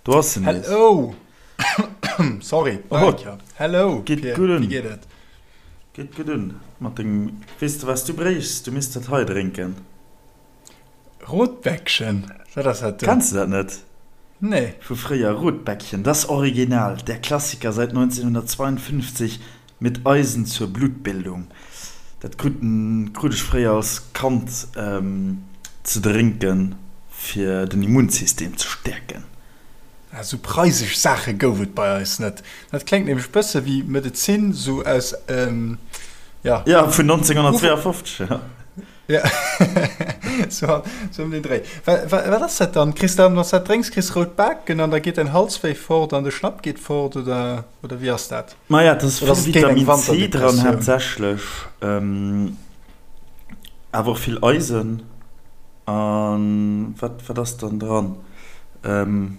Do ass en nees. Hello! Sorry, Oh, Hello, geet Pir, gutt wéi un. geet et? Geet gutt un mat dengem. Weess de wat s du bréichs? Du misst dat hei drénken. Rotbäckchen? Wat ass dat do? Kenns de dat net? Nee. Vu fréier, Rotbäckchen, das Original, der Klassiker seit 1952 mit Eisen zur Blutbildung. Dat kruten, krut ech fréier als Kand ze drénken fir den Immunsystem ze stäerken. Ah, sou preisesch Saache gouf et bei eis net. Dat kléngt nämlech bësse wéi Medezin, sou aus, ja. Ja, vun 1952, ja. Ja, sou ëm den Dréi. Wat ass dat dann? Kriss dann, wann s dat drénks, kriss rout Baken an da geet däin Halswéi fort an de Schnapp geet fort, oder, oder wéi ass dat? Maja, et ass Oder ass vill et géint eng Vitamin C dran Wanterdepressioun? haaptsächlech, awer och vill Eisen. An wat, wat ass dann dran?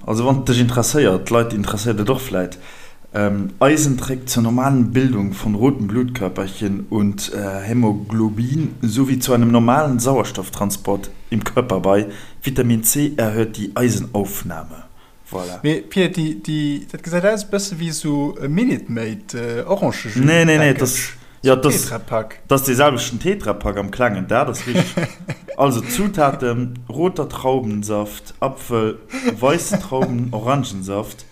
Also wann et dech interesséiert, d'Leit interesséiert et och vläit, Eisen trägt zur normalen Bildung von roten Blutkörperchen und Hämoglobin sowie zu einem normalen Sauerstofftransport im Körper bei. Vitamin C erhöht die Eisenaufnahme. Voilà. Mee Pir, déi, déi, dat gesäit aus e bësse wéi esou e Minute Maid Orangejus Nee, nee, nee, dat, Package, jo, esou dat, Tetrapack. dat ass dee selwechten Tetrapack am klengen, dat ass richteg. Also Zutaten, roter Traubensaft, Apfel, weisse Trauben, Orangensaft,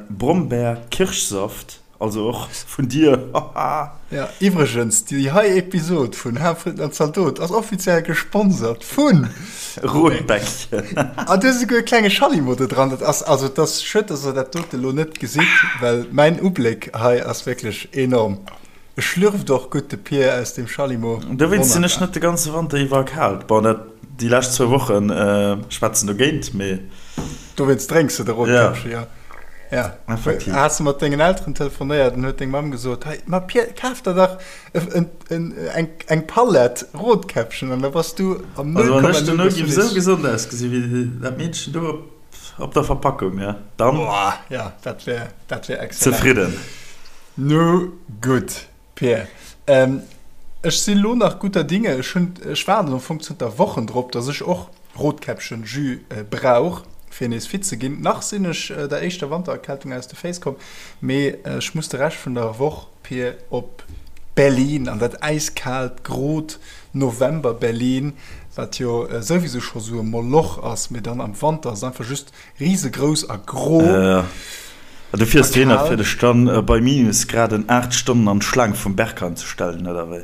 Brombeer, Kirschsaft, Also och vun dir, haha. Ja, iwwregens, déi hei Episod vun Haarfritten an Zaldot ass offiziell gesponsert vun Rotbäckchen. An do ass esouguer e klenge Schallimo do dran. Dat ass, also et ass schued, dass der dat dote lo net gesitt, well mäin Ubléck hei ass wierklech enorm. E schlürft och gutt, de Pier, aus deem Schallimo. Dowéinst sinn ech Wonnerbar. net de ganze Wanter iwwer erkaalt. Bon, dat, déi lescht zwou Woche schwätzen dogéint, mee. Dowéinst drénks de de Rotkäppchen, ja. Ja. Effektiv. Has de mat dengen Elteren telefonéiert an huet deng Mamm gesot, hei, ma Pier, kaf der dach eng, eng Palett Rotkäppchen an da bass du am Also wann ech 0,0 dono bass du giff esou nees. gesond ausgesi wéi dat Meedchen do op, op der Verpackung, ja, dann. Boah, ja, dat wär, dat wär exzellent. Zefridden. Nu gutt. Pierre, Ech si lo nach gutter Dinge. Ech hunn, ech waarden am Fong zënter Wochen drop, dass ech och Rotkäppchen-Jus brauch, fir nees fit ze ginn. Nach sinn ech der éischter Wantererkältung aus de Féiss komm, mee ech muss de Rescht vun der Woch, Pir, op Berlin, an dat äiskaalt, grot November-Berlin, wat jo souwisou scho sou e Moloch ass, mee dann am Wanter ass et einfach just Riesegrouss a gro. A du fiers dohinner fir dech dann bei Minusgraden 8 Stonnen an d'Schlaang vum Berghain ze stellen, oder wéi?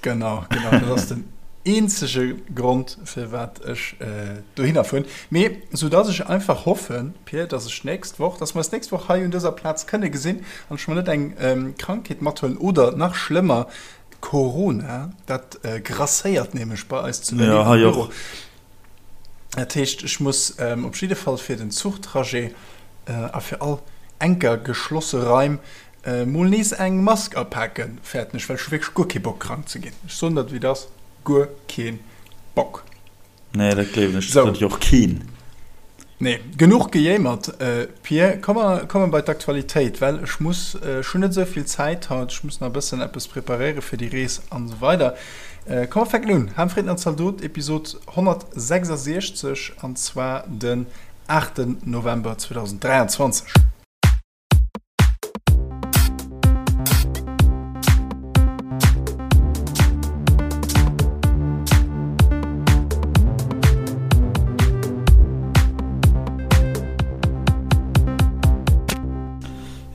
Genau, genau, dat ass den eenzege Grond firwat ech dohinner fueren. Mee sou dass ech einfach hoffen, Pir, dass ech d'nächst Woch, dass mer eis d'nächst Woch hei un dëser Plaz kënne gesinn an ech mer net eng Krankheet mathuelen oder nach schlëmmer Corona, dat grasséiert nämlech bei eis zu Berlin am Büro. Dat heescht, ech muss op jidde Fall fir den Zuchtrajet a fir all enker geschlosse Raim mol nees eng Mask apaken, fäerten ech, well ech hu wierklech guer kee Bock krank ze ginn. Ech soen der et wéi et ass, guer kee Bock. Nee, dat gleewen ech, dat huet jo och keen. Nee, genuch gejéimert, Pir. Komm mer komme bei d'Aktualitéit, well ech muss, ech hunn net esou vill Zäit haut, ech muss nach e bëssen eppes preparéiere fir déi Rees an esou weider. Komm mer fänken un, Ham, Fritten an Zaldot, Episod 166, an zwar den 8 November 2023.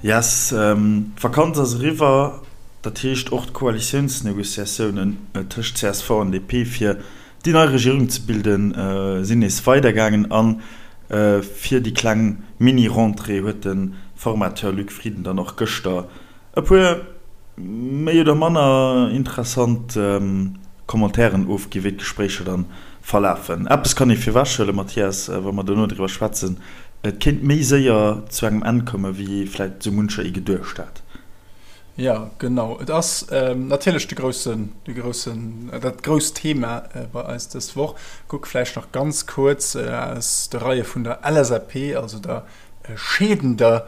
Yes, d'Vakanz ass eriwwer, dat heescht och d'Koalitiounsnegociatiounen tëscht csv an DP fir déi nei Regierung ze bilden sinn nees weidergaangen a fir déi kleng Mini-Rentrée huet de Formateur Luc Frieden dann och gëschter e puer méi oder manner interessant Commentairen ofginn, wéi d'Gespréicher dann verlafen. Eppes kann ee virwechhuelen, Mathias, wa mer dono driwwer schwätzen, Et kéint méi séier zu engem Enn kommen, wéi vläicht esou muncher ee geduecht hat. Jo, genau. Et ass natierlech de groussen, de groussen, dat grousst Thema bei eis dës Woch. Kuck vläicht nach ganz kuerz aus de Reie vun der LSAP, also der scheedender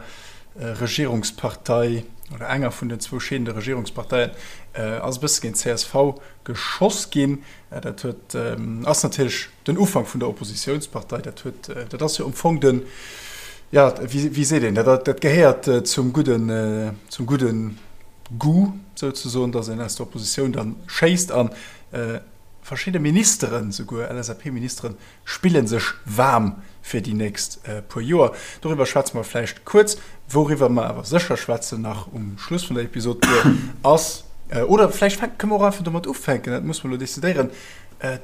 Regierungspartei. oder enger vun den zwou scheedende Regierungsparteien, ass e bësse géint csv geschoss ginn. Dat huet, ass natierlech den Ufank vun der Oppositiounspartei. Dat huet, dat ass jo am Fong den, jo, wéi, wéi seet een, dat, dat gehéiert zum gudden, zum gudden Goût souzesoen, datt een aus der Oppositioun dann schéisst an verschidde Ministeren, souguer LSAP-Ministeren, spille sech waarm fir déi nächst puer Joer. Doriwwer schwätze mer vläicht kuerz. Wouriwwer mer awer sécher schwätzen nach um Schluss vun der Episod, ass, oder vläicht kënne mer och einfach domat ufänken, dat musse mer elo decidéieren,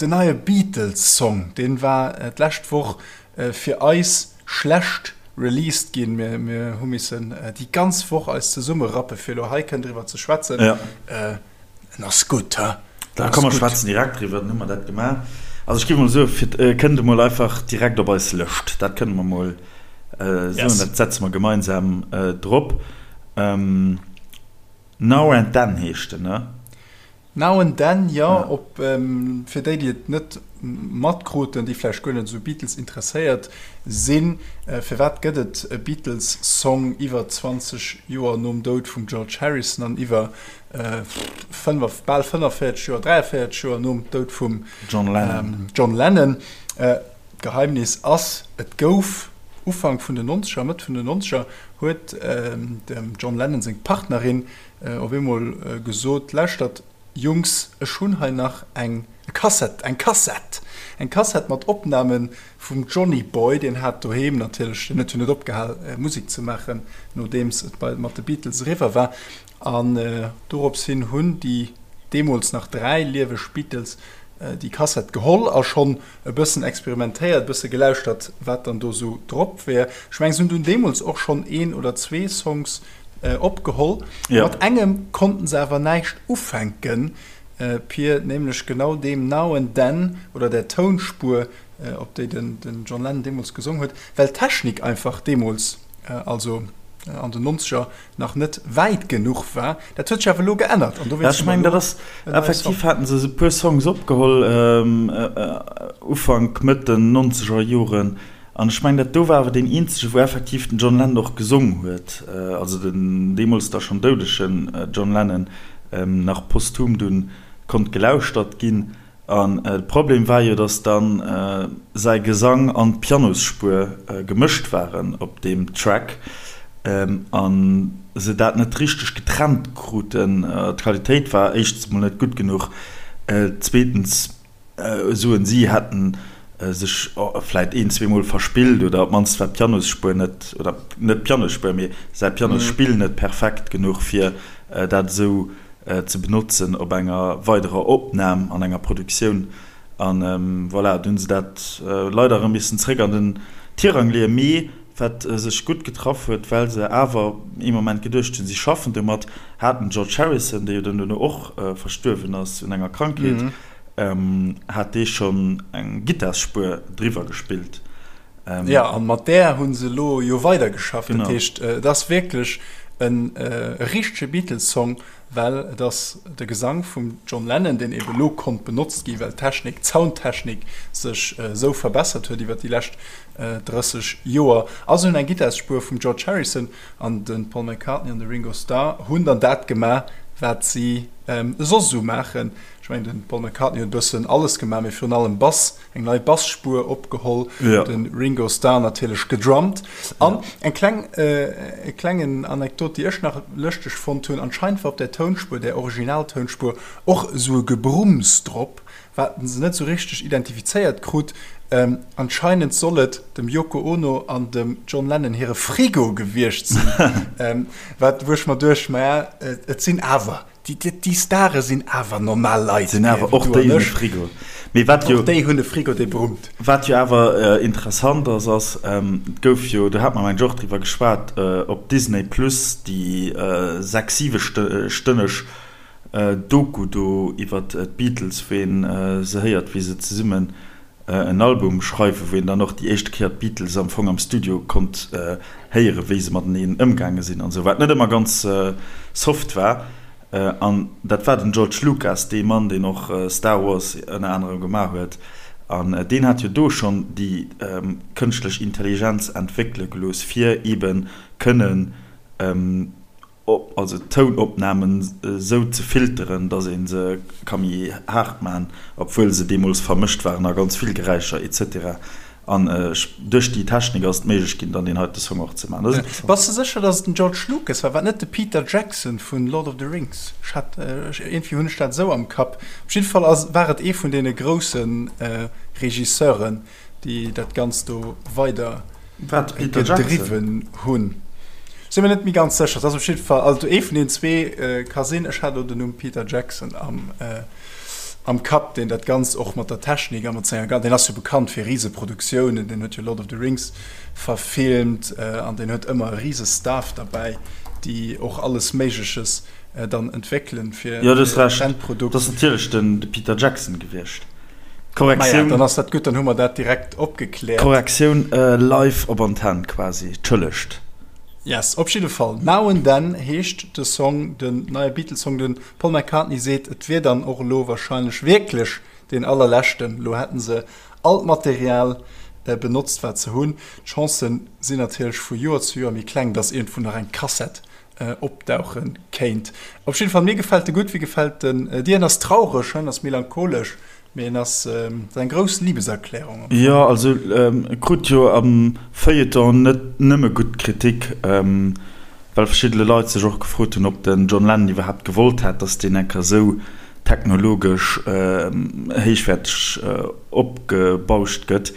den neie Beatles-Song, dee war d'lescht Woch fir eis schlecht released ginn. Mir hu missen déi ganz Woch eis zesummerappe fir elo hei kënnen driwwer ze schwätzen. En ass gutt, he? Da komm mer schwätzen direkt driwwer, dann hu mer dat gemaach. Also ech géif emol soen, fir et kënnt emol einfach direkt op eis Lëscht. Dat kënne mer emol soen, dat setze mer gemeinsam drop. Now and Then heescht en, ne? Now and Then, jo. Op, fir déi, déi et net matkruten, déi vläicht guer net esou Beatles interesséiert sinn, firwat gëtt et e Beatles-Song iwwer 20 Joer nom Doud vum George Harrison an iwwer bal 45 Joer, 43 Joer nom Doud vum John Lennon. John Lennon. D'Geheimnis ass, et gouf Ufank vun den Nonzeger, Mëtt vun den Nonzeger huet dem John Lennon seng Partnerin op eemol gesot, Lauschtert Jungs, ech hunn hei nach eng Kassett, eng Kassett, eng Kassett mat Opname vum Johnny Boy, deen hat doheem natierlech, deen huet jo net opgehal Musek ze maachen, nodeems et bei mat de Beatles eriwwer war. An dorops hin hunn déi deemools nach 3 lieweg Beatles déi Kassett geholl a schonn e bëssen experimentéiert, e bësse gelauschtert, wat dann do sou drop wär. Ech mengen, se hunn dunn deemools och schonn een oder zwee Songs opgeholl. Mat engem konnten se awer näischt ufänken, Pir, nämlech genau deem Now and Then oder där Tounspuer, op déi den John Lennon deemools gesong huet, well d'Technik einfach deemools, also an den Nonzeger, nach net wäit genuch war. Dat huet sech awer elo geännert an dowéinst hu mer elo en neie Song. Effektiv haten se e puer Songs opgeholl Ufank, Mëtt den nonzeger Joren an ech mengen dat do war awer deen eenzege wou effektiv den John Lennon och gesong huet, also den deemools da schonn doudegen John Lennon, nach posthum dunn konnt gelauschtert ginn. An de Problem war jo, dass dann säi Gesang an d'Pianosspuer gemëscht waren op deem Track an se dat net richteg getrennt kruten. D'Qualitéit war éischtens mol net gutt genuch, zweetens soen si, hätten sech vläit een, zweemol verspillt oder op d'mannst war d'Pianosspuer net, oder net d'Pianosspuer, mee säi Pianosspill net perfekt genuch, fir dat esou ze benotzen op enger weiderer Opnam an enger Produktioun. An voilà, du hunn se dat leider erëm missen zréck an den Tirang leeën. Mee wat sech gutt getraff huet, well se awer ee Moment geduecht hunn, si schaffen domat, hat den George Harrison, dee jo dann duerno och verstuerwen ass un enger Krankheet, hat dee schonn eng Gittarsspuer driwwer gespillt. Jo, an mat där hu se elo jo weidergeschafft. Dat heescht, et ass wierklech e richtege Beatles-Song, well et ass de Gesang vum John Lennon, deen ebe lo konnt benotzt ginn, well d'Technik, d'Soundtechnik sech esou verbessert huet iwwer déi lescht 30 Joer. A se hunn eng Gittarsspuer vum George Harrison an de Paul McCartney an de Ringo Starr hunn dann dat gemaach, wat si soss esou maachen. Ech mengen, de Paul McCartney huet e bëssen alles gemaach, mee virun allem Bass. Eng nei Bassspur opgeholl, ja. Den Ringo Starr natierlech gedrummt. An ja. eng kleng, äh, e klengen Anekdot, déi ech nach lëschteg fonnt hunn, anscheinend war op der Tounspuer, der Originaltounspuer, och esou e Gebrumms drop, wat se net esou richteg identifizéiert krut. Ähm, anscheinend soll et dem Yoko Ono an dem John Lennon hire Frigo gewiescht sinn. ähm, wat, wou ech mer duecht, maja, et sinn awer Déi Stare sinn awer normal Leit. Sinn awer och déi hunn e Frigo. Mee wat jo. Och déi hunn e Frigo, dee brummt. Wat jo awer interessant ass, ass, et gouf jo, do hat mer mengen ech och driwwer geschwat, op Disney Plus déi 6, 7 stënneg Doku do iwwer d'Beatles, wou een se héiert, wéi se zesummen en Album schreiwen, wou een dann och déi éischte Kéier d'Beatles am Fong am Studio konnt héieren, wéi se mateneen ëmgaange sinn an esou, wat net ëmmer ganz soft war. An dat war den George Lucas, dee Mann, deen och Star Wars ënner anerem gemaach huet. An deen hat jo do schonn déi kënschtlech Intelligenz entwéckele gelooss, fir eebe kënnen. also Tounopnamen esou ze filteren, datt ee se ka méi haart maachen, obwuel se deemools vermëscht waren a ganz vill Geräischer etc. An duerch déi Technik ass et méiglech ginn, dann deen heite Song och ze maachen. Dat ass interessant. Bass de sécher, datt et den George Lucas war? War et net de Peter Jackson vun Lord of the Rings? Ech hat, iergendwéi hunn ech dat esou am Kapp. Op jidde Fall ass, war et ee vun deene grousse Regisseuren, déi dat Ganzt do weider gedriwwen hunn. Sinn mir net méi ganz sécher. Et ass op jidde Fall, also ee vun deenen zwee ka sinn. Ech hat elo den Numm Peter Jackson am, am Kapp, deen dat Ganzt och mat der Technik a mat senger, deen ass jo bekannt fir Riseproduktiounen, deen huet jo Lord of the Rings verfilmt an deen huet ëmmer e rise Staff derbäi, déi och alles Méigleches dann entwéckelen fir Jo, du hues Recht, et ass natierlech den de Peter Jackson gewiescht. Korrektioun. Maja, dann ass dat gutt, dann hu mer dat direkt opgekläert. Korrektioun live op Antenn quasi, tschëllegt. Yes, op jidde Fall, Now and Then heescht de Song, den neie Beatles-Song. De Paul McCartney seet, et wier dann och elo warscheinlech wierklech deen allerleschten. Elo hätten se all d'Material benotzt, wat se hunn. D'Chancen sinn natierlech vu Joer zu Joer méi kleng, dass iergendwou nach eng Kassett opdauche kéint. Op jidde Fall, mir gefält e gutt. Wéi gefält en dir? En ass traureg, en ass melancholesch, mee en ass eng grouss Liebeserklärung am Fong. Jo, also e krut jo am Feuilleton net nëmme gutt Kritik, well verschiddene Leit sech och gefrot hunn, ob den John Lennon iwwerhaapt gewollt hätt, datt deen enker esou technologesch héichwäerteg opgebauscht gëtt.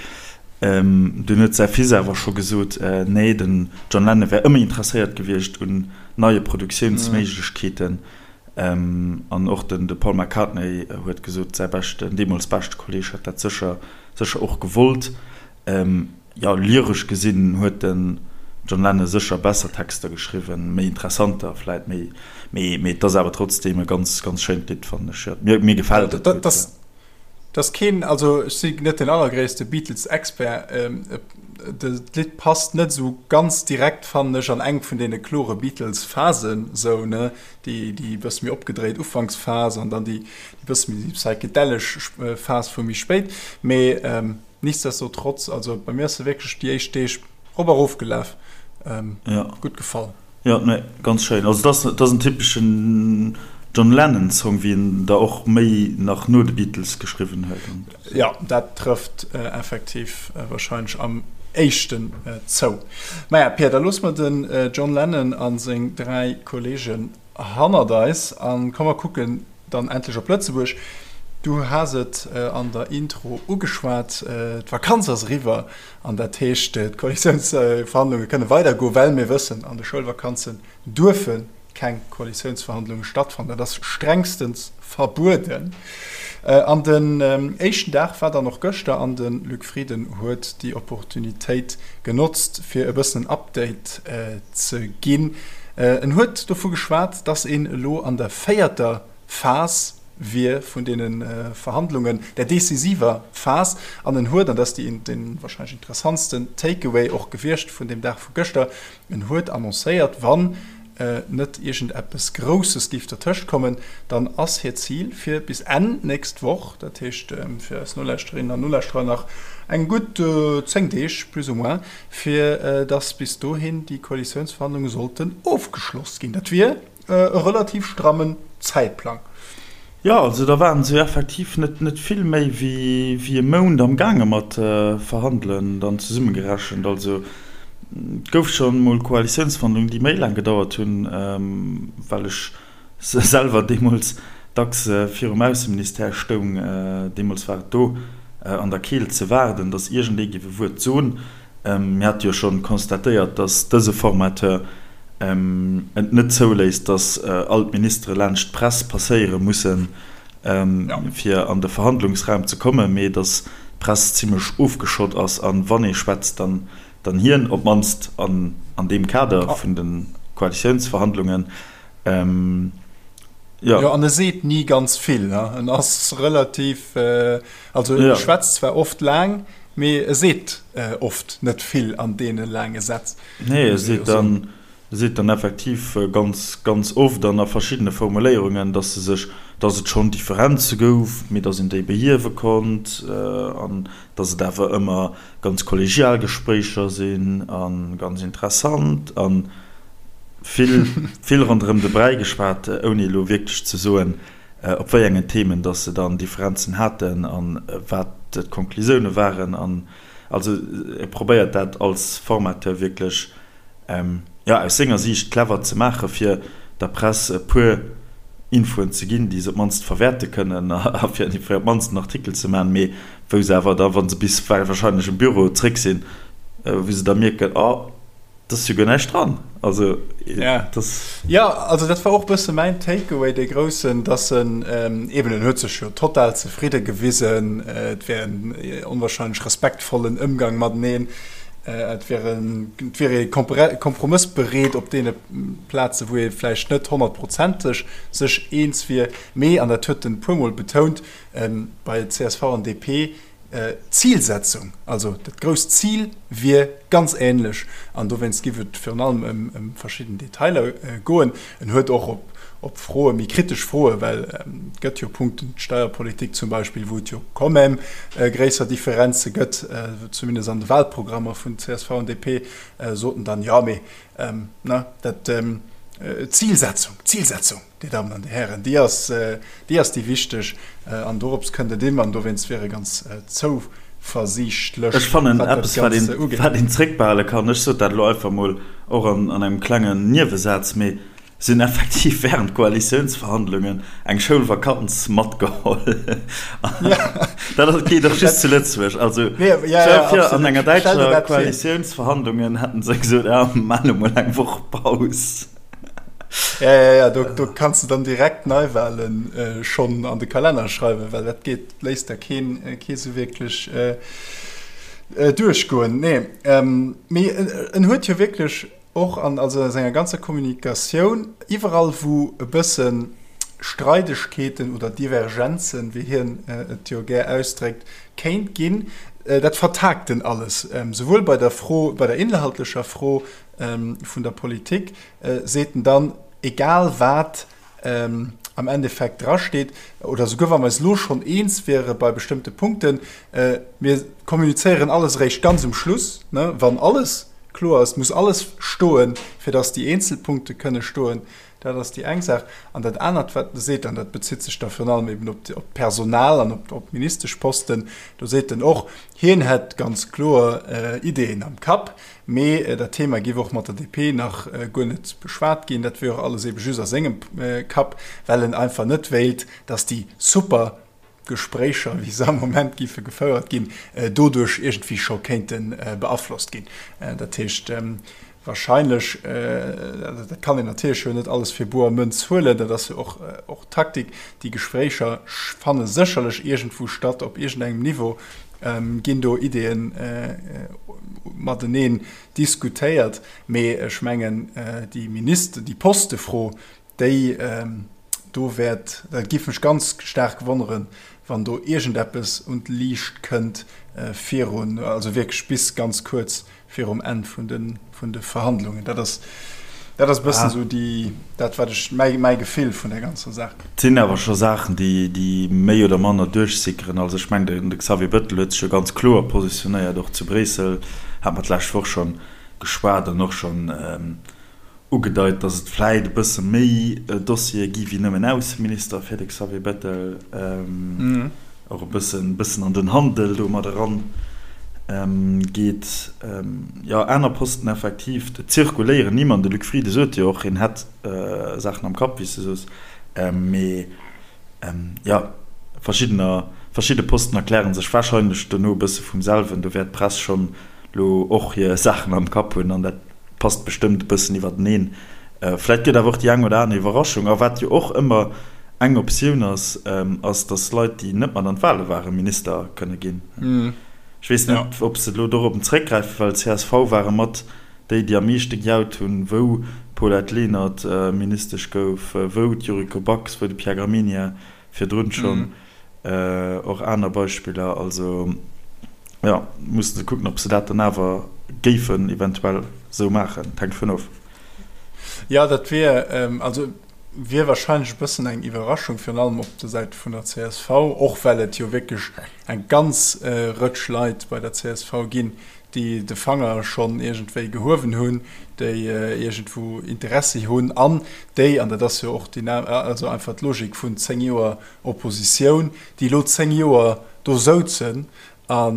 Dunn huet säi Fils awer scho gesot, nee, den John Lennon wär ëmmer interesséiert gewiescht un neie Produktiounsméiglechkeeten. An och den de Paul McCartney huet gesot, säi beschten, deemools beschte Kolleeg hätt dat sécher, sécher och gewollt. Jo, lyresch gesinn huet den John Lennon sécher besser Texter geschriwwen, méi interessanter vläit, mee, mee et ass awer trotzdeem e ganz, ganz schéint Lidd, fannen ech. Jo, mir, mir gefält et gutt, jo. Dass keen, also ech si net den allergréisste Beatles-Expert, d'Lidd passt net esou ganz direkt, fannen ech, an eng vun deene klore Beatles-Phasen, esou, ne, déi déi bësse méi opgedréit Ufanksphas an dann déi bësse méi psychedellesch Phas vu méi spéit. Mee nichtsdestotrotz, also bei mir ass se wierklech déi éischt Deeg rop a rof gelaf, gutt gefall. Jo, nee, ganz schéin. Also dat ass, dat ass en typeschen John Lennon Song, wéi en der och méi nach no de Beatles geschriwwen huet. An. Jo, dat trëfft effektiv wahrscheinlech am éischten zou. Maja, Pierre, da loosse mer den John Lennon a seng 3 Kollegen hannert eis a komm mer kucken Dann endlech op Lëtzebuerg. Du has et an der Intro ugeschwat, d'Vakanz ass eriwwer an dat heescht, d'Koalitiounsverhandlunge kënne weidergoen, well mir wëssen, an de Schoulvakanzen duerfe keng Koalitiounsverhandlunge stattfannen. Dat ass strengstens verbueden. An den éischten Dag war dann och gëschter an de Luc Frieden huet déi Opportunitéit genotzt, fir e bëssen en Update ze ginn. En huet dovu geschwat, datt een elo an der véierter Phas wier vun deene Verhandlungen, der decisiver Phas. An en huet, an dat ass déi dee warscheinlech interessantsten Takeaway och gewiescht vun deem Dag vu gëschter, en huet annoncéiert, wann net iergendeppes Grousses géif dertëscht kommen, dann ass hiert Zil fir bis Enn nächst Woch, dat heescht fir eis Nolauschterinnen an Nolauschterer nach eng gutt 10 Deeg plus ou moins, fir datt bis dohin déi Koalitiounsverhandlunge sollten ofgeschloss ginn. Dat wier e relativ strammen Zäitplang. Jo, also da waren se jo effektiv net net vill méi wéi wéi e Mount am gaange mat verhandelen, dann zesummegerechent. Also et gouf scho mol Koalitiounsverhandlungen, déi méi laang gedauert hunn, well ech selwer deemools dacks virum Ausseministère stoung. Deemools war et do an der Keelt ze waarden, datt iergendee géif e Wuert soen. Mir hate jo schonn constatéiert, datt dëse Formateur et net zouléisst, datt all d'Ministere laanscht d'Press passéiere mussen, fir an de Verhandlungsraum ze kommen, mee datt d'Press zimlech ofgeschott ass a wann ee schwätzt, dann hien, op d'mannst an deem Kader vun de Koalitiounsverhandlungen. Jo, an e seet ni ganz vill. En ass relativ, also e schwätzt zwar oft laang, Mee e seet oft net vill an deene laange Sätz. Nee, e seet dann, e seet dann effektiv ganz, ganz oft an a verschiddene Formuléierungen, dass se sech, dass et schonn Differenze gouf, mee dass een déi behiewe konnt an dass et awer ëmmer ganz kollegial Gespréicher sinn a ganz interessant an. Vill, vill ronderëm de Bräi geschwat, ouni elo wierklech ze soen, op wéi engen Themen dass se dann Differenzen haten a wat d'Konklusioune waren. An also e probéiert dat als Formateur wierklech, jo, aus senger Siicht clever ze maachen, fir der Press e puer Infoen ze ginn, déi se op d'mannst verwäerte kënnen a fir op d'mannst en Artikel ze maachen, mee wou se awer da, wa se bis wahrscheinlech um Büro zréck sinn, wou se da mierken, oh, Et ass jo guer näischt dran. Also, ja. Das ja, also dat war och bësse mäin Takeaway, dee groussen, dass en ähm, eben, en huet sech jo total zefridde gewisen, äh, et wär en äh, onwahrscheinlech respektvollen Ëmgang mateneen, äh, et wär en, et wier ee kompromëssbereet op deene Plaze wou ee vläicht net honnertprozenteg sech eens wier, mee, an dat huet en puermol betount, ähm, bei csv an DP, D'Zilsetzung, also dat grousst Zil wier ganz änlech an dowéinst giff et virun allem ëm verschidden Detailer goen. En huet och op Froe, méi kritesch Froe, well et gëtt jo Punkten, d'Steierpolitik zum Beispill, wou et jo quand même gréisser Differenze gëtt, zumindest an de Wahlprogrammer vun csv an DP, sot en dann, jo mee, ne, dat, d'Zilsetzung, d'Zilsetzung. Dir Dammen an Dir Hären, déi ass, déi ass déi wichteg an dorops kënnt et ëm an dowéinst wier e ganz zouversiichtlech, Ech fannen wat dat eppes, wat Ganze een, ugeet. wat een zréckbehale kann, ech sot dat elo einfach mol och an, an engem klengen Niewesaz, mee se hunn effektiv während Koalitiounsverhandlungen eng Schoulvakanz matgeholl. Dat ass, geet och just zu Lëtzebuerg. Also Nee, ja, ja, stell dir vir, an absolut. enger Stell dir däitscher dat vir. Koalitiounsverhandlungen hätten se gesot, ja, mir maachen elo mol eng Woch Paus. Ja, ja, ja, do, do kanns du dann direkt Neiwahlen äh, schonn an de Kalenner schreiwen, well dat geet, léisst da keen, äh, kee sou wierklech äh, äh, duerchgoen. Nee, ähm, mee en, en huet jo wierklech och an also a senger ganzer Kommunikatioun iwwerall wou e bësse Streidegkeeten oder Divergenzen, wéi hien äh, et jo gär ausdréckt, kéint ginn, äh, dat vertagt en alles, ähm, souwuel bei der Fro, bei der inhaltlecher Fro, vun der Politik, seet en dann, egal wat am Endeffekt drasteet, oder souguer wa mer eis elo schonn eens wiere bei bestëmmte Punkten, mir kommunizéieren alles eréischt ganz um Schluss, wann alles kloer ass, muss alles stoen, fir datt déi eenzel Punkte kënne stoen. Dat ass déi eng Saach. An dat anert, wat e seet, an dat bezitt sech da virun allem eben op d'Personal an op d'Ministeschposten, do seet en och, hien hätt ganz kloer Ideeën am Kapp, Mee dat Thema géif och mat der DP nach guer net beschwat ginn. Dat wier och alles ebe just a sengem Kapp, well en einfach net wéilt, datt déi super Gespréicher, wéi se am Moment géife gefouert ginn, doduerch iergendwéi scho kéinte beaflosst ginn. Dat heescht wahrscheinlech, dat kann een natierlech jo net alles fir boer Mënz huelen, dat ass jo och Taktik, déi Gespréicher fanne sécherlech iergendwou statt, op iergendengem Niveau, ginn do Ideeën mateneen diskutéiert, mee ech mengen déi Minister, déi Postefro, déi do wäert, dat géif mech ganz staark wonneren, wann do iergendeppes un d'Liicht kënnt virun, also wierklech bis ganz kuerz virum Enn vun de, vun de Verhandlungen. Dat ass, dat ass e bëssen esou déi, dat wat ech, mäi, mäi Gefill vun der ganzer Saach. Et sinn awer scho Saachen, déi, déi méi oder manner duerchsickeren. Also ech mengen, de Xavier Bettel huet sech jo ganz kloer positionéiert, och zu Bréissel, hate mer d'lescht Woch schonn geschwat an och schonn ugedeit, datt et vläit e bësse méi Dossiere gi wéi nëmmen Ausseminister fir de Xavier Bettel, och e bëssen bëssen an den Handel do mat eran geet. Jo, aner Posten effektiv, et zirkuléieren Nimm an de Luc Frieden sot jo och, hien hätt Saachen am Kapp, wéi s de soos, mee jo, verschiddener, verschidde Posten erkläre sech warscheinlech dono e bësse vum selwen. Do wäert d'Press schonn lo och hir Saachen am Kapp hunn an dat passt bestëmmt e bëssen iwwerteneen. Vläit gëtt awer och déi eng oder aner Iwwerraschung. A wat jo och ëmmer eng Optioun ass, ass, datt Leit, déi net mat an d'Wale waren, Minister kënne ginn. Ech weess net, ob se elo dorop zréckgräifen, well csv ware mat déi, déi am meeschte gejaut hunn, wou d'Paulette Lenert Ministesch gouf, wou d'Yuriko Backes, wou de Pierre Gramegna virdrun schonn. Och aner Beispiller. Also jo, musse se kucken, ob se dat dann awer géifen eventuell esou maachen. Et hänkt dovun of. Jo, dat wier, also wier wahrscheinlech e bëssen eng Iwwerraschung, virun allem op der Säit vun der csv, och well et jo wierklech eng ganz Rëtsch Leit bei der csv ginn, déi de Fanger schonn iergendwéi gehuewen hunn, déi iergendwou Interessi hunn an déi, an dat ass jo och déi, also einfach d'Logik vun 10 Joer Oppositioun, déi elo 10 Joer do souzen a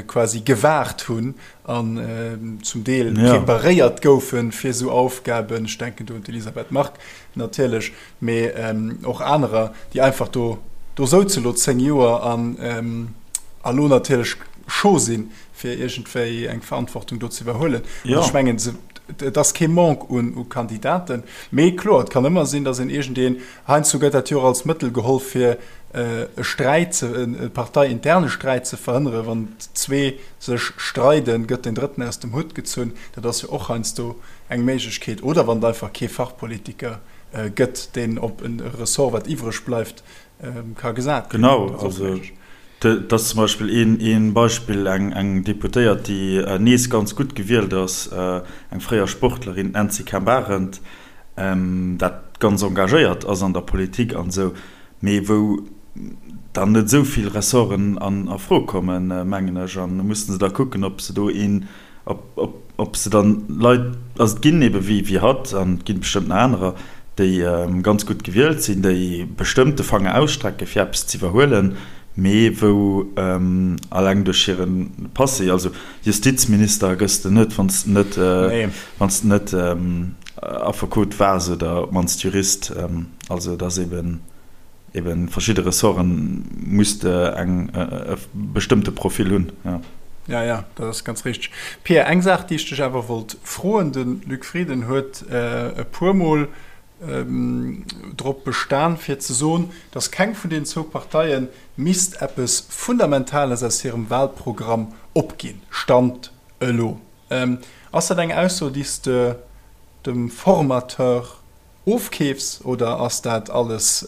quasi gewaart hunn an zum Deel preparéiert goufe fir esou Aufgaben, ech denken do un d'Elisabeth Margue natierlech, mee och anerer, déi einfach do do souze lo 10 Joer an elo natierlech scho sinn, fir iergendwéi eng Verantwortung do ze iwwerhuelen. An ech mengen, et ass kee Manque un u Kandidaten, mee kloer, et kann ëmmer sinn, datt een iergendeen, heiansdo gëtt dat jo och als Mëttel geholl, fir e Sträit ze, e parteiinterne Sträit ze verhënneren, wann zwee sech streiden, gëtt den Drëtten aus dem Hutt gezunn. Dat ass jo och heiansdo eng Méiglechkeet. Oder wann et einfach kee Fachpolitiker gëtt, deen op e Ressort, wat iwwreg bleift, ka gesat ginn. Genau, also dat ass zum Beispill ee Beispill, eng Deputéiert, déi nees ganz gutt gewielt ass, eng fréier Sportlerin, d'Nancy Kemp-Arendt, dat ganz engagéiert ass an der Politik an esou, mee wou dann net esou vill Ressorten a Fro kommen, mengen ech. An do mussen se da kucken, ob se do een, ob se dann Leit, also et ginn ebe wéi hatt an et gi bestëmmt nach anerer, déi ganz gutt gewielt sinn, déi bestëmmt de Fanger ausstrecke fir eppes ze iwwerhuelen, mee wou alleng duerch hire Passé, also Justizminister gëss de net, wann s de net, wann s de net Affekot waars oder op d'mannst Jurist. Also et ass eben, eben verschidde Ressorten muss de eng, e bestëmmte Profil hunn, jo. Ja, ja, dat ass ganz richteg. Pia, eng Saach, déi ech dech awer wollt froen, De Luc Frieden huet e puermol drop bestan, fir ze soen, datt keng vun deenen zwou Parteie misst eppes Fundamentales aus hirem Wahlprogramm opginn, Stand elo. Ass dat eng Ausso, déi s de dem Formateur ofkeefs oder ass dat alles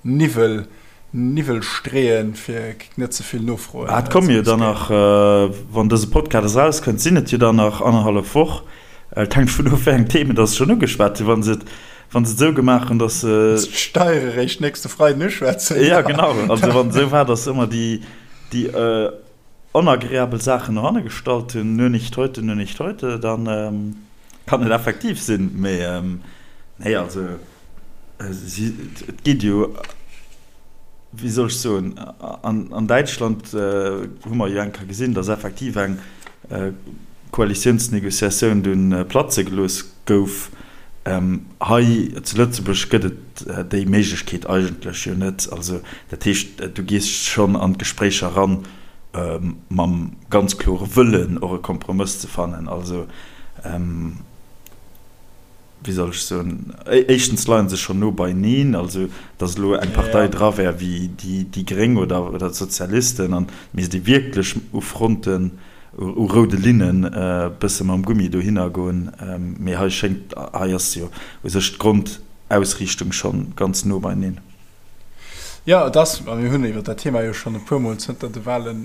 Niwwel, Niwwel streeën, fir net ze vill Nofroen ze Et komme jo dann nach, wann dëse Podcast erauskënnt, sinn et jo dann nach annerhallef Woch. Et hänkt vun of, wéi eng Themen dass se schonn ugeschwat hunn. Wa se et, wa se et esou gemaach hunn, dass se. D'Steiere réischt nächste Freiden uschwätzen. Jo, genau. Also wann et esou war, dass se ëmmer déi, déi onagreabel Saachen no hanne gestallt hunn, nur nicht heute, nur nicht heute, dann kann et effektiv sinn. Mee nee, also si, et geet jo, wéi soll ech soen, an Däitschland hu mer jo eng Kéier gesinn, datt effektiv eng Koalitiounsnegociatioun dunn platze gelooss gouf. Hei zu Lëtzebuerg gëtt et déi Méiglechkeet eigentlech jo net. Also dat heescht, du gees schonn an d'Gespréicher eran mam ganz klore Wëllen, och e Kompromëss ze fannen. Also wéi soll ech soen, éischtens leie se schonn no beineen, also datt elo eng Partei dra wär wéi déi Gréng oder d'Sozialisten an et misst ee wierklech u Fronten, u roude Linnen e bësse mam Gummi dohinner goen, mee hei schéngt, hei ass jo u sech d'Grondausriichtung schonn ganz no beineen. Jo, et ass, a mir hunn iwwer dat Thema jo schonn e puermol zënter de Wahle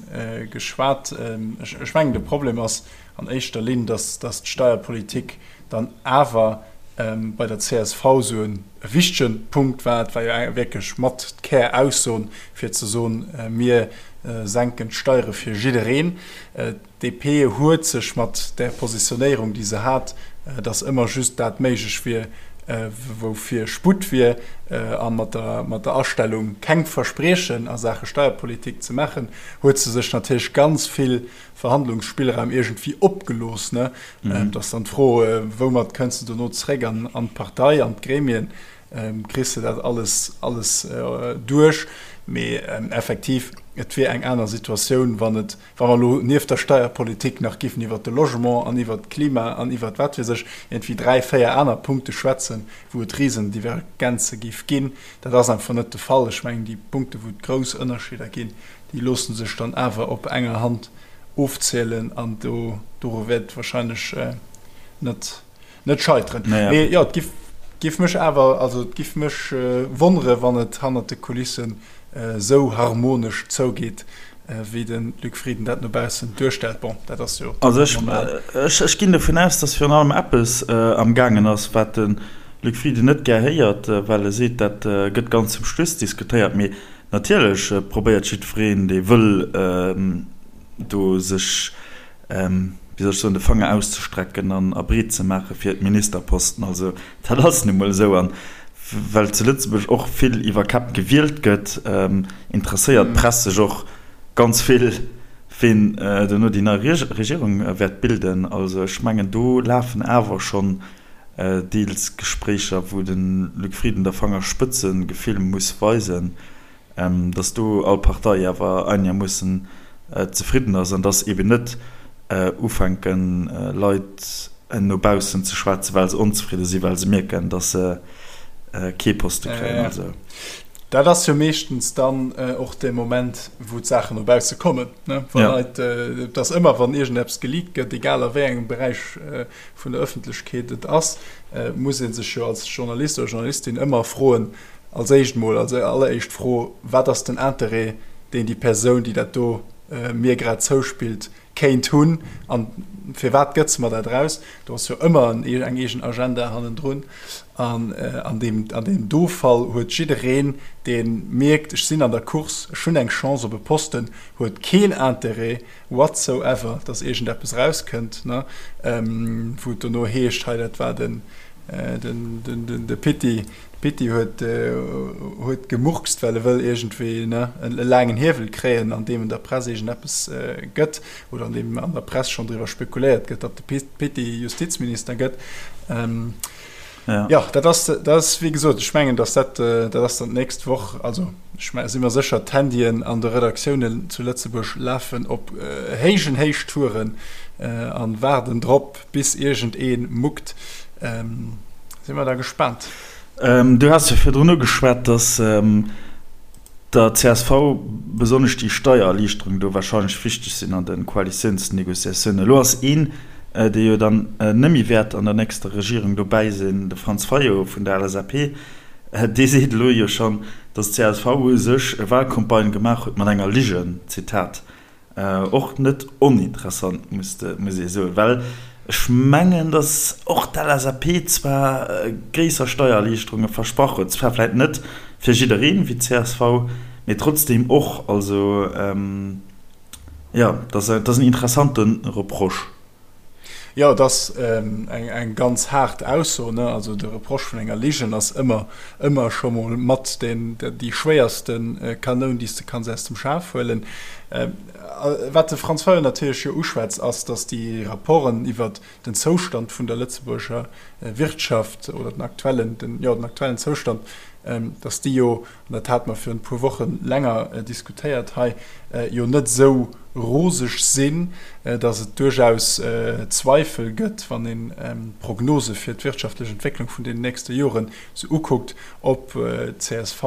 geschwat, ech mengen de Problem ass an éischter Linn, datt d'Steierpolitik dann awer bei der csv esou e wichtege Punkt war. Et war jo wierklech mat d'Kär-Ausson, fir ze soen, mir senken d'Steiere fir jiddereen. D'DP huet sech mat där Positionéierung, déi se hat, datt ëmmer just dat méiglech wier, woufir Sputt wier, a mat der Astellung, keng Verspriechen a Saache Steierpolitik ze maachen, huet se sech natierlech ganz vill Verhandlungsspillraum iergendwéi opgelooss. Ne? Mhm. Et ass dann d'Fro, woumat kënns de dono zréck an, an d'Partei, an d'Gremien, kriss de dat alles, alles duerch? Mee effektiv, et wier eng aner Situatioun, wann et, wa mer elo nieft der Steierpolitik nach giffen iwwert de Logement an iwwert d'Klima an iwwert wat weess ech, iergendwéi dräi, véier aner Punkte schwätzen, wou et Risendivergenze giff ginn. Dat ass einfach net de Fall. Ech mengen, déi Punkte, wou et grouss Ënnerscheeder ginn, Déi loosse sech dann awer op enger Hand ofzielen an do doru wäert et wahrscheinlech net net scheiteren. Mee jo, et giff giff mech awer, also et giff mech wonnere wann et hannert de Kulissen esou harmonesch zougeet, wéi de Luc Frieden dat no baussen duerstellt. Bon, dat ass jo Also ech normal. Ech ech ginn dovun aus, datt virun allem eppes amgaangen ass, wat de Luc Frieden net gär héiert, well e seet, dat gëtt ganz zum Schluss diskutéiert. Mee Natierlech probéiert jiddwereen, dee wëll, do sech. wéi soll ech soen, de Fanger auszestrecken an a breet ze maache fir d'Ministerposten. Also dat ass nu mol esou. An well zu Lëtzebuerg och vill iwwer Käpp gewielt gëtt, interesséiert d'Press sech och ganz vill, ween duerno déi nei Regierung wäert bilden. Also ech mengen, do lafen awer schonn deels Gespréicher, wou de Luc Frieden der Fangerspëtzegefill muss weisen. dass do all Partei awer einegermoossen zefridden ass an dass eben net ufänken, Leit no baussen ze schwätzen, well se onzefridde sinn, well se mierken, dass se kee Poste kréien. Also. Dat ass jo meeschtens dann och dee Moment, wou d'Saachen no bausse kommen, ne? Wa Leit, et ass ëmmer, wann iergendeppes geleakt gëtt, egal a wéi engem Beräich vun der Ëffentlechkeet et ass, muss ee sech jo als Journalist oder Journalistin ëmmer froen, Als éischt mol, als alleréischt Fro, Wat ass den Interêt, deen déi Persoun, déi dat do mir grad zouspillt, kéint hunn? A firwat gëtt se mer dat eraus? Do ass jo ëmmer eng eegen Agenda hannendrun. An an deem, an deem do Fall huet jiddereen, dee mierkt, ech sinn an der Course, ech hunn eng Chance op e Posten, huet keen Interêt whatsoever, dass iergendeppes erauskënnt, wou et dono heescht, hei dat war den, de Pitti, D'Pitti huet huet gemurkst, well e wëll iergendwéi, ne, e laangen Hiewel kréien, an deem en der Press iergendeppes gëtt, oder an deem an der Press schonn driwwer spekuléiert gëtt, datt de Pitti Justizminister gëtt. Jo, dat ass, dat ass wéi gesot, ech mengen, datt dat, dat ass dann d'nächst Woch, also ech si mer sécher, d'Handyen an de Redaktiounen zu Lëtzebuerg lafen op héijen Héichtouren a waarden drop, Bis iergend een muckt. Si mer da gespaant. Du has jo virdrun ugeschwat, datt der csv besonnesch déi Steiererliichterung do warscheinlech wichteg sinn an de Koalitiounsnegociatiounen. Elo ass een, dee jo dann net méi wäert an der nächster Regierung dobäi sinn, de Franz Fayot vun der LSAP, dee seet elo jo schonn, datt d'CSV u sech e Wahlcampagne gemaach huet mat enger Ligen, Zitat. Och net oninteressant, muss ee soen, well ech mengen, datt och d'LSAP zwar gréisser Steiererliichterunge versprach huet, zwar vläicht net fir jiddereen wéi d'CSV, mee trotzdeem och. Also jo, dat ass en interessante Reproche. Jo, et ass eng ganz haart Ausso, ne? Also de Reproche vun enger Ligen ass ëmmer, ëmmer scho mol mat deen, déi schwéierste Kanoun, déi s de kanns aus dem Schaf huelen. Wat de Franz Fayot natierlech jo uschwätzt, ass, datt déi Rapporten iwwert den Zoustand vun der Lëtzebuerger Wirtschaft oder den aktuellen, den, jo, den aktuellen Zoustand, datt déi jo an dat hate mer virun e puer Woche länger diskutéiert hei, jo net esou roseg sinn, datt et duerchaus Zweifel gëtt, wann een d'Prognose fir d'wirtschaftlech Entwécklung vun den nächste Joren sou ukuckt, ob d'CSV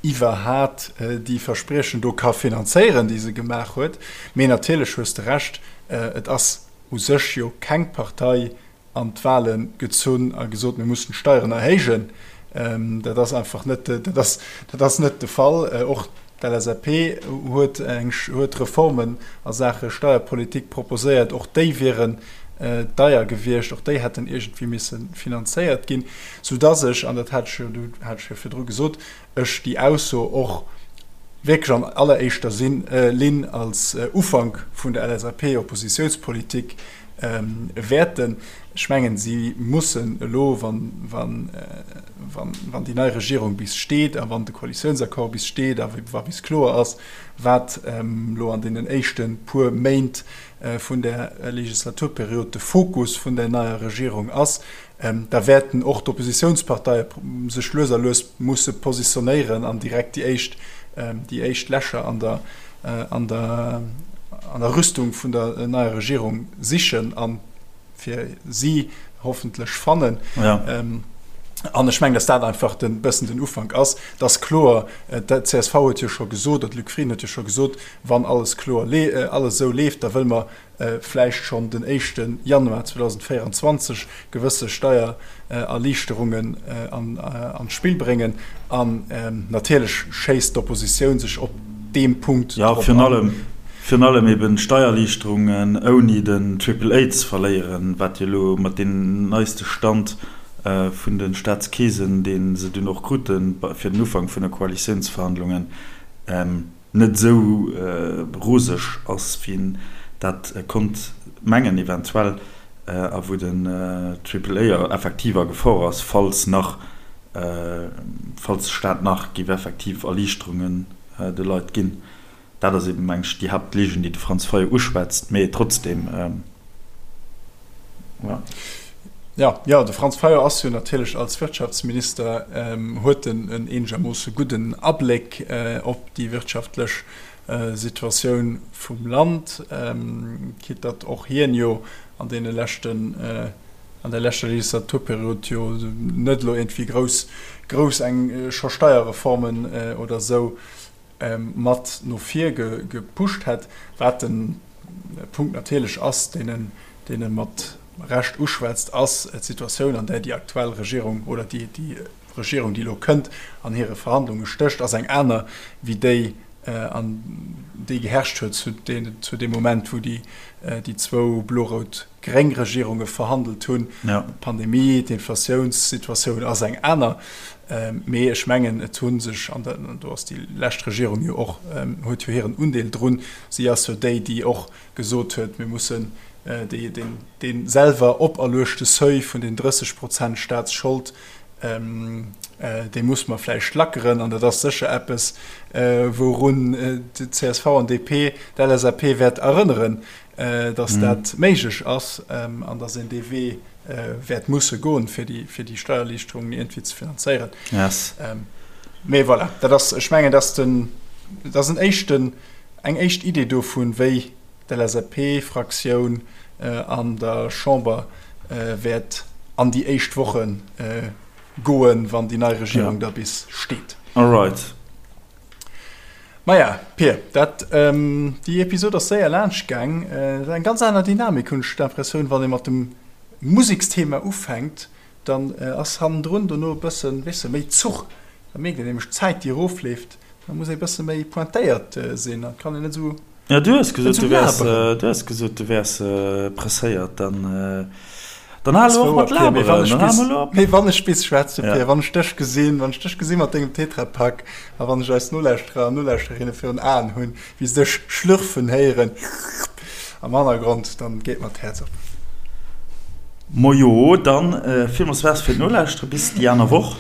iwwerhat déi Verspriechen do ka finanzéieren, déi se gemaach huet. Mee natierlech hues de Recht, et ass u sech jo keng Partei, an d'Wahle gezunn a gesot, mir mussen d'Steieren erhéijen. Dat ass einfach net, dat ass, dat ass net de Fall. Och d'LSAP huet eng, huet Reformen a Saache Steierpolitik proposéiert. Och déi wieren deier gewiescht, och déi hätten iergendwéi misse finanzéiert ginn, soudass ech, an dat hat ech jo, hat ech jo virdru gesot, ech déi Ausso och wierklech an alleréischter Linn als Ufank vun der LSAP-Oppositiounspolitik wäerten. Ech mengen, si mussen elo, wann déi nei Regierung bis steet a wann de Koalitiounsaccord bis steet a wa bis kloer ass, wat elo an deenen éischte puer Méint vun där Legislaturperiod de Fokus vun där neier Regierung ass, da wäerten och d'Oppositiounsparteie sech lues a lues musse positionéieren an direkt déi éischt, déi éischt Lächer an der, an der, an der Rüstung vun der neier Regierung sichen a fir si hoffentlech fannen. An ech mengen, datt dat einfach e bëssen den Ufank ass. Et ass kloer, d'CSV huet jo scho gesot, oder de Luc Frieden huet jo scho gesot, wann alles kloer, alles esou leeft, da wëlle mer vläicht schonn den éischte Januar 2024 gewësse Steiererliichterungen an d'Spill bréngen. An natierlech schéisst d'Oppositioun sech op deem Punkt drop an. Virun allem eben d'Steiererliichterungen ouni den Triple A ze verléieren, wat jo elo mat deem neiste Stand vun de Staatskeesen, dee se dunn och krute fir den Ufank vun de Koalitiounsverhandlungen, net esou roseg ass, wéi een. dat konnt mengen eventuell a wou den Triple A effektiv a Gefor ass, falls nach, falls de Staat nach géif effektiv Erliichterungen de Leit ginn. Dat ass eben, meng ech, déi Haaptligen, déi de Franz Fayot uschwätzt, mee trotzdem, jo. Jo, jo, de Franz Fayot ass jo natierlech als Wirtschaftsminister, huet en en eenegermoosse gudden Abléck op déi wirtschaftlech Situatioun vum Land, quitte datt och hien jo an deene leschten, an der leschter Legislaturperiod jo net elo iergendwéi grouss, grouss eng scho Steierreformen oder esou mat no vir gepusht hätt, wat de Punkt natierlech ass, deen en, deen e mat Recht uschwätzt, ass d'Situatioun, an där déi aktuell Regierung oder déi, déi Regierung, déi elo kënnt, an hire Verhandlunge stécht, ass eng aner wéi déi, an déi geherrscht huet zu zu deem Moment, wou déi, déi zwou blo-rout-gréng Regierunge verhandelt hunn. D'Pandemie, d'Inflatiounssituatioun ass eng aner. Mee ech mengen, et hu sech, an do ass déi lescht Regierung jo och, huet jo hiren Undeel drun, si ass jo déi, déi och gesot huet, mir mussen dee selwer operluechte Seuil vun den 30 Prozent Staatsschold, dee muss mer vläicht lackeren. An dat ass sécher eppes, wourun d'CSV an DP d'LSAP wäert erënneren, datt dat méiglech ass an datt een dee Wee wäert musse goen, fir déi, fir déi Steiererliichterungen iergendwéi ze finanzéieren. Yes. Mee voilà, dat ass, ech mengen, dat ass den, dat ass en éischten, eng éischt Idee dovun, wéi d'LSAP-Fraktioun an der Chamber wäert an déi éischt Woche goen, wann déi nei Regierung da bis steet. Alright. Maja, Pir, dat, déi Episod ass séier laanscht gaang. Et ass eng ganz aner Dynamik, hunn ech d'Impressioun, wann ee mat dem Museksthema ufänkt, dann ass hannendrun dono e bëssen, weess de, méi Zuch. Da mierkt een nämlech d'Zäit, déi erofleeft. Da muss ee bësse méi pointéiert sinn, da kann een net esou. Ja, du hues gesot, du wäers, du hues gesot, du wäers presséiert. Dann, dann hal elo och mat laberen. Dann hal mol elo op. Mee wann ech bis schwätze, Pir, wann ech dech gesinn, wann ech dech gesi mat dengem Tetrapak a wann ech eis Nolauschterer an Nolauschterinnen virun Aen hunn, wéi se dech schlürfen héieren am Hannergrond, dann geet mer d'Häerz op. Mojo, dann villmools Merci fir d'Nolauschtere. Bis déi aner Woch.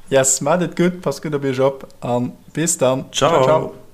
Yes, maacht et gutt, passt gutt op iech op a bis dann. Ciao, ciao.